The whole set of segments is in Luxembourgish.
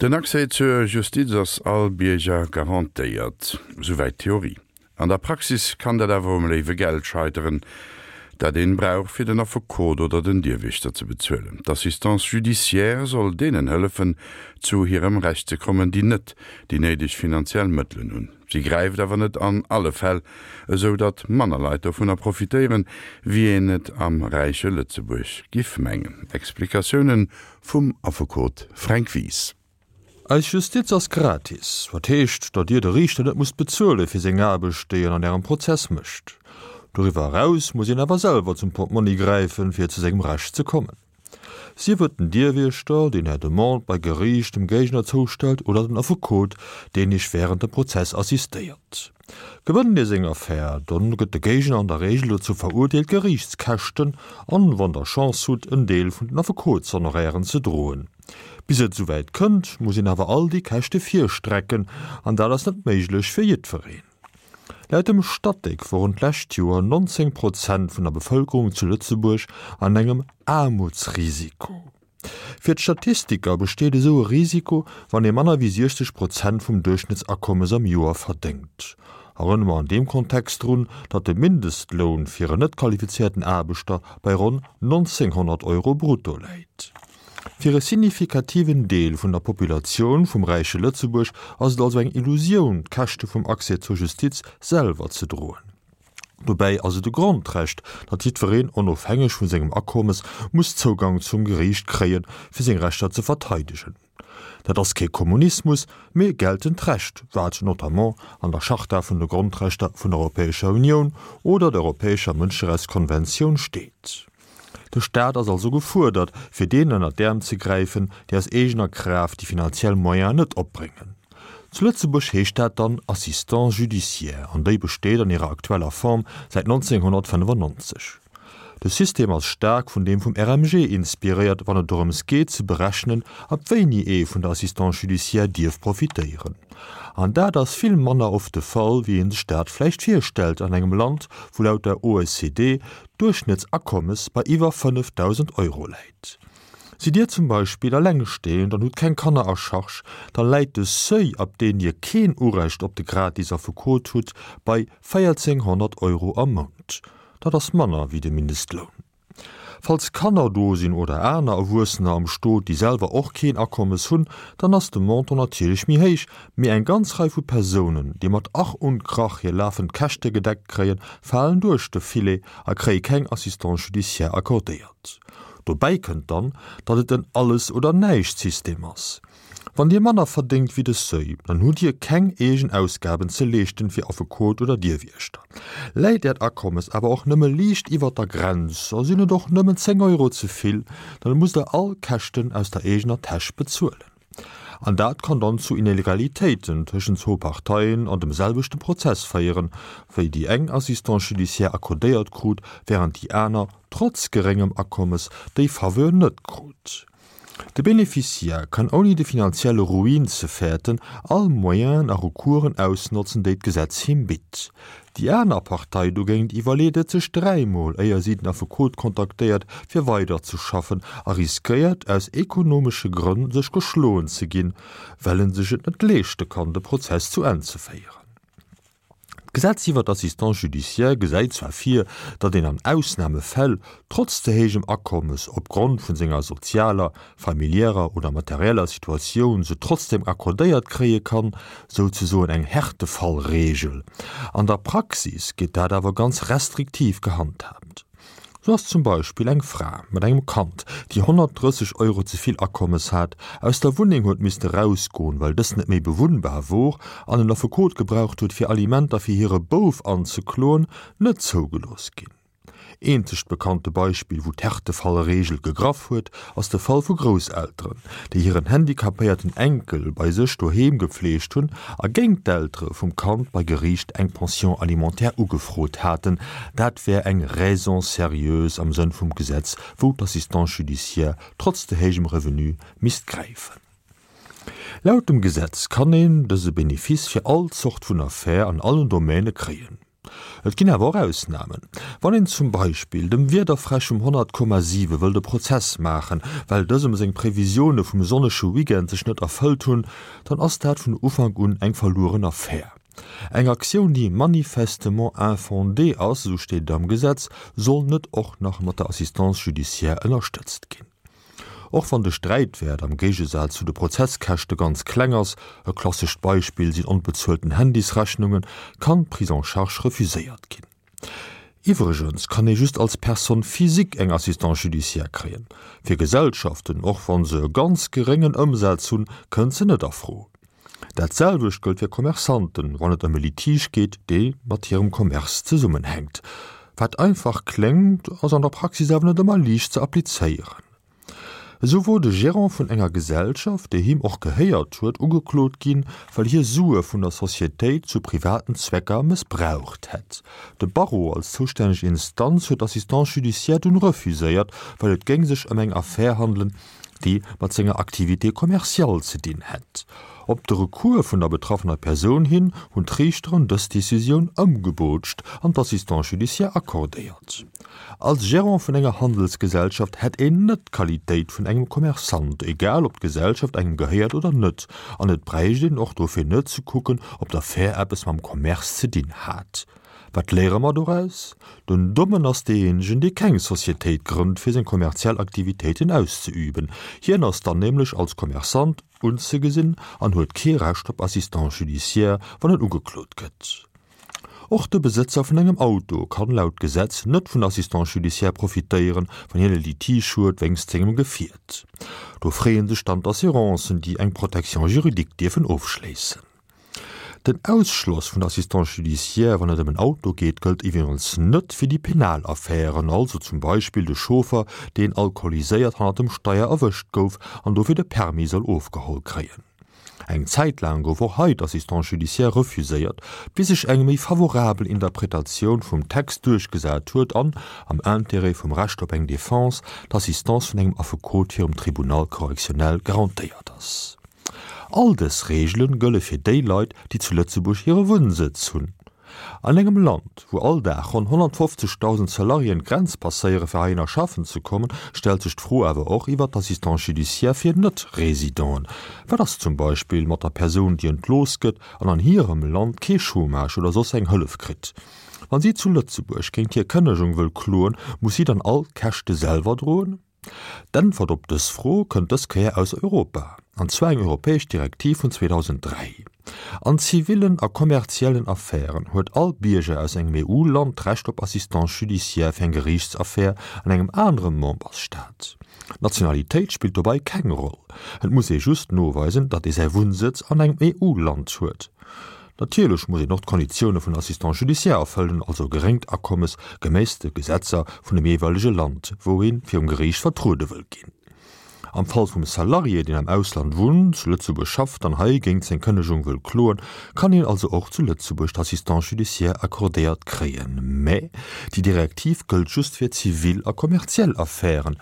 Den Accès zur Justiz ass all Bierger garantéiert. Souwäit d'Theorie. An der Praxis kann dat awer um léiwe Geld scheiteren, dat een brauch fir den Affekot oder den Dierwiechter ze bezuelen. D'Assistance judiciaire soll deenen hëllefen, zu hirem Recht ze kommen, déi net déi néideg finanziell Mëttelen hunn. Si gräift awer net an alle Fäll, esou datt manner Leit dovunner profitéieren, wéi een et am räiche Lëtzebuerg giff mengen. Explikatiounen vum Affekot Fränk Wies. Eis Justiz ass gratis, wat heescht, datt Dir de Riichter net musst bezuele fir seng Aarbecht, déi en an Ärem Prozess mécht. Doriwwer eraus muss een awer selwer zum Portmonni gräifen, fir zu sengem Recht ze kommen. Sief et den Dierwiechter, deen Är Demande bei Geriicht dem Géigner zoustellt, oder den Affekot, deen Iech wärend dem Prozess assistéiert. Gewënnt Dir seng Affär, dann gëtt de Géigner an der Reegel dozou verurteelt, Geriichtskäschten an, wann Der Chance hutt, en Deel vun den Affekotshonorairen ze droen. Bis et esouwäit kënnt, muss een awer all déi Käschte virstrecken, an dat ass net méiglech fir jiddwereen. Laut dem Statec woren d'lescht Joer 19 Prozent vun der Bevëlkerung zu Lëtzebuerg an engem Aarmutsrisiko. Fir d'Statistiker besteet esou e Risiko, wann ee manner wéi 60 Prozent vum Duerchschnëttsakommes am Joer verdéngt. Erënnere mer an deem Kontext drun, datt de Mindestloun fir en net qualifizéierten Aarbechter bei ronn 1.900 Euro brutto läit. Fir e signifikativen Deel vun der Populatioun vum räiche Lëtzebuerg ass et also eng Illusioun, d'Käschte vum Accès zur Justiz selwer ze droen. Dobäi ass et e Grondrecht, datt jiddwereen, onofhängeg vu sengem Akommes, muss Zougang zum Geriicht kréien, fir seng Rechter ze verteidegen. Dat ass kee Kommunismus, mee geltend Recht, wat notamment an der Charta vun de Grondrechter vun der Europäescher Unioun oder der Europäescher Mënscherechtskonventioun steet. De Staat ass also gefuerdert, fir deenen ënner d'Äerm ze gräifen, déi aus eegener Kraaft déi finanziell Moyenen net opbréngen. Zu Lëtzebuerg heescht dat dann Assistance judiciaire an déi besteet an hirer aktueller Form säit 1995. De System ass staark vun deem vum RMG inspiréiert, wann et dorëms geet ze berechnen, ab wéini ee vun der Assistance judiciaire dierf profitéieren. An dat ass vill manner oft de Fall, wéi ee sech dat vläicht virstellt an engem Land, wou laut der OECD d'Duerchschnëttsakommes bei iwwer 5.000 Euro läit. Sidd Dir zum Beispill allengstehend an hutt keng Kanner a Charge, da läit de Seuil, ab deen Dir keen Urecht op de gratis Affekot hutt, bei 1.400 Euro am Mount. Dat ass manner wéi de Mindestloun. Falls Kanner do sinn oder aner Erwuessener am Stot, déi selwer och keen Akommes hunn, dann ass de Montant natierlech méi héich, Mee eng ganz Rei vu Persounen, déi mat Ach und Krach hir lafend Käschte gedeckt kréien, falen duerch de Filet a kréie keng Assistance judiciaire accordéiert. Dobäi kënnt dann, datt et en Alles-oder-Näischt-System ass. Wann Dir manner verdéngt wéi de Seuil, dann hutt Dir keng eegen Ausgaben ze leeschten fir Affekot oder Dierwiechter. Läit Äert Akommes awer och nëmme liicht iwwert der Grenz a sinn et och nëmmen 10 Euro ze vill, dann musst Der all Käschten aus der eegener Täsch bezuelen. An dat kann dann zu Inegalitéiten tëschent zwou Parteien an dem selwechte Prozess féieren, wéi déi eng Assistance judiciaire accordéiert krut, während déi aner, trotz geréngem Akommes, déi Faveur net krut. De Beneficiaire kann ouni de finanzielle Ruin ze fäerten, all Moyenen a Recoursen ausnotzen, déi d'Gesetz him bitt. Déi aner Partei dogéint iwwerleet et sech dräimol, éier si den Affekot kontaktéiert, fir weiderzeschaffen a riskéiert, aus ekonomesche Grënn sech geschloen ze ginn, well en sech et net leeschte kann, de Prozess zu Enn ze féieren. D'Gesetz iwwer d'Assistance judiciaire gesäit zwar vir, datt een an Ausnamefäll, trotz ze héijem Akommes, opgrond vun senger sozialer, familiärer oder materieller Situatioun se trotzdem accordéiert kréie kann, souzesoen eng Härtefallregel. An der Praxis gétt dat awer ganz restriktiv gehandhaabt. Sou ass zum Beispill eng Fra mat engem Kand, déi 130 Euro ze vill Akommes hat, aus der Wunneng huet misste rausgoen, well dës net méi bewunnbar wor, an en Affekot gebraucht huet, fir Alimenter fir hire Bouf anzekloen, net zougelooss ginn. Eenzegt bekannte Beispill, wou d'Härtefallregel gegraff huet, ass de Fall vu Grousselteren, déi hiren handicapéierten Enkel bei sech doheem gefleegt hunn a géint d'Eltere vum Kand bei Geriicht eng Pension alimentaire ugefrot haten. Dat wär eng Raison sérieuse am Sënn vum Gesetz, wou d'Assistance judiciaire trotz ze héijem Revenu misst gräifen. Laut dem Gesetz kann een dëse Benefice fir all Zort vun Affär an allen Domäne kréien. Et ginn awer och Ausnamen. Wann een zum Beispill dem Wiederfräsch vum 100,7 wëllt e Prozess maachen, well dësem seng Previsioune vum sonnege Weekend sech net erfëllt hunn, dann ass dat vun Ufank un eng verlueren Affär. Eng Aktioun, déi manifestement infondée ass, esou steet et am Gesetz, soll net och nach mat der Assistance judiciaire ënnerstëtzt ginn. Och wann de Sträitwäert am Géigesaz zu de Prozesskäschte ganz kleng ass, e klassescht Beispill sinn onbezuelten Handysrechnungen, kann d'Prise en charge refuséiert ginn. Iwwregens kann ee just als Personne physique eng Assistance judiciaire kréien. Fir Gesellschaften, och wa se e ganz geréngen Ëmsaz hunn, kënnt se net a Fro. Dat selwecht gëllt fir Commerçanten, wann et ëm e Litige geet, dee mat hirem Commerce zesummenhänkt. Wat einfach kléngt, ass an der Praxis awer net ëmmer liicht ze applizéieren. Esou wor de Gérant vun enger Gesellschaft, déi him och gehéiert huet, ugeklot ginn, well hie Sue vun der Societéit zu privaten Zwecker mëssbraucht hätt. De Barreau als zoustänneg Instanz huet d'Assistance judiciaire dunn refuséiert, well et géing sech ëm eng Affär handelen, déi mat senger Activité commerciale ze dinn hätt. Op de Recours vun der betraffener Persoun hin hunn d'Riichteren dës Decisioun ëmgebootscht an d'Assistance judiciaire accordéiert. Als Gérant vun enger Handelsgesellschaft hätt een net d'Qualitéit vun engem Commerçant, egal ob d'Gesellschaft engem gehéiert oder net, an et bräicht een och dofir net ze kucken, ob d'Affär eppes mam Commerce ze dinn hat. Wat léiere mer doraus? Den Dommen ass deejéinegen, dee keng Societéit grënnt, fir seng kommerziell Aktivitéiten auszeüben. Hien ass dann nämlech als Commerçant unzegesinn an huet kee Recht op Assistance judiciaire, wann en ugeklot gëtt. Och de Besëtzer vun engem Auto kann laut Gesetz net vun Assistance judiciaire profitéieren, wann hien e Litige huet wéinst sengem Gefiert. Do freeë sech dann d'Assurancen, déi eng Protection juridique dierfen ofschléissen. Den Ausschloss vun der Assistance judiciaire, wann et ëm en Auto geet, gëllt iwwregens net fir déi penal Affären, also zum Beispill de Chauffer, deen alkoholiséiert hannert dem Steier erwëscht gouf an dofir de Permis soll ofgeholl kréien. Eng Zäit laang gouf och hei d'Assistance judiciaire refuséiert, bis sech eng méi favorabel Interpretatioun vum Text duerchgesat huet an, am Intérêt vum Recht op eng Defense, d'Assistance vun engem Affekot virum Tribunal correctionnel garantéiert ass. All dës Reegele gëlle fir déi Leit, déi zu Lëtzebuerg hire Wunnsëtz hunn. An engem Land, wou all Dag ronn 150.000 Salariéen d'Grenz passéiere fir heihinner schaffen ze kommen, stellt sech d'Fro awer och iwwer d'Assistance judiciaire fir Net-Residenten. Wat ass zum Beispill mat der Persoun, déi entlooss gëtt an an hirem Land kee Chômage oder soss eng Hëllef kritt? Wann si zu Lëtzebuerg géint hir Kënnegung wëll kloen, muss si dann all d'Käschte selwer droen? D'Äntwert op dës Fro kënnt dës Kéier aus Europa, an zwar eng europäesch Direktiv vun 2003. An zivillen a kommerziellen Affären huet all Bierger aus engem EU-Land d'Recht op Assistance judiciaire fir eng Geriichtsaffär an engem anere Membersstaat. D'Nationalitéit spillt dobei keng Roll, et muss ee just noweisen, datt ee säi Wunnsëtz an engem EU-Land huet. Natierlech muss een och d'Konditioune vun Assistant judiciaire erfëllen, also e geréngt Akommes geméiss de Gesetzer vun dem jeeweilege Land, wou ee virum Geriicht vertruede wëll ginn. Am Fall vum Salarié, deen am Ausland wunnt, zu Lëtzebuerg schafft an hei géint seng Kënnegung wëll kloen, kann hien also och zu Lëtzebuerg d'Assistance judiciaire accordéiert kréien. Mä déi Direktiv gëllt just fir zivil a kommerziell Affären.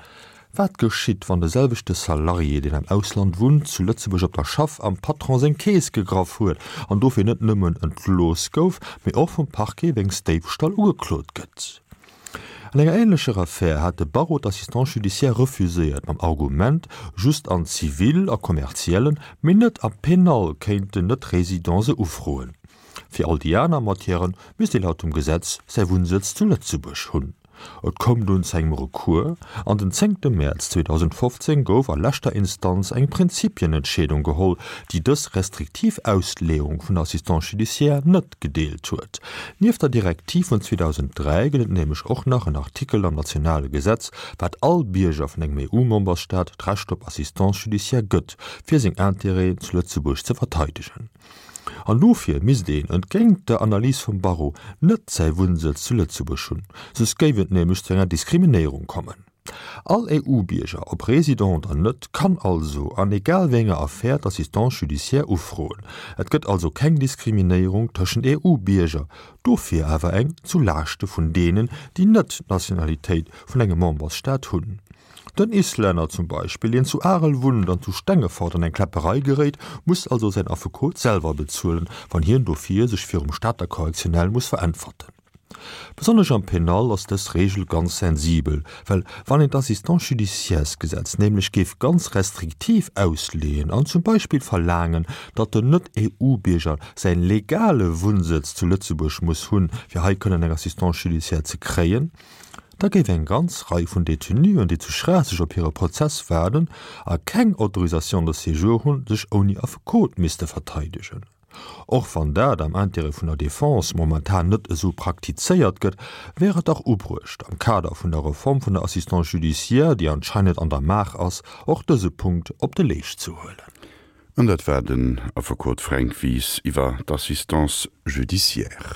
Wat geschitt, wann de selwechte Salarié, deen am Ausland wunnt, zu Lëtzebuerg op der Schaff am Patron seng Keess gegraff huet an dofir net nëmmen entlooss gouf, mee och vum Parquet wéinst Déifstall ugeklot gëtt? An enger änlecher Affär hat de Barreau d'Assistance judiciaire refuséiert, mam Argument, just an Zivil a Kommerziellen, mee net am Penal kéinten Net-Résidents se ufroen. Fir all déi aner Matièrë misst ee laut dem Gesetz säi Wunnsëtz zu Lëtzebuerg hunn. Et koum dunn zu engem Recours an den zéngte Mäerz 2015 gouf a leschter Instanz eng Prinzipienentscheedung geholl, déi dës restriktiv Ausleeung vun der Assistance judiciaire net gedeelt huet. Nieft der Direktiv vun 2003 gëtt et nämlech och nach en Artikel am nationale Gesetz, wat all Bierger vun engem EU-Memberstaat d'Recht op Assistance judiciaire gëtt, fir seng Intérêten zu Lëtzebuerg ze verteidegen. An dofir misst een, entgéint der Analys vum Barreau, net säi Wunnsëtz zu Lëtzebuerg hunn, soss géif et nämlech zu enger Diskriminéierung kommen. All EU-Bierger, ob Résident oder net, kann also an egal wéi enger Affär d'Assistance judiciaire ufroen. Et gëtt also keng Diskriminéierung tëschent EU-Bierger, dofir awer eng zu Laaschte vun deenen, déi net d'Nationalitéit vun engem Membersstaat hunn. Den Islänner zum Beispill, deen zu Arel wunnt an zu Stengefort an eng Kläpperei geréit, muss also säin Affekot selwer bezuelen, wann hien dofir sech virum Stater Correctionnel muss veräntwerten. Besonnesch am Penal ass dës Regel ganz sensibel, well wann een d'Assistance judiciairesgesetz nämlech géif ganz restriktiv ausleeën an zum Beispill verlaangen, datt den Net-EU-Bierger säin legale Wunnsëtz zu Lëtzebuerg muss hunn, fir hei kënnen eng Assistance judiciaire ze kréien, da géif eng ganz Rei vun Détenuen, déi zu Schraasseg op hire Prozess waarden a keng Autorisation de séjour hunn, sech ouni Affekot misste verteidegen. Och wann dat am Intérêt vun der Défense momentan net esou praktizéiert gëtt, wär et dach ubruecht, am Kader vun der Reform vun der Assistance judiciaire, déi anscheinend an der Maach ass, och dëse Punkt op de Leescht ze huelen. An dat war den Affekot Fränk Wies iwwer d'Assistance judiciaire.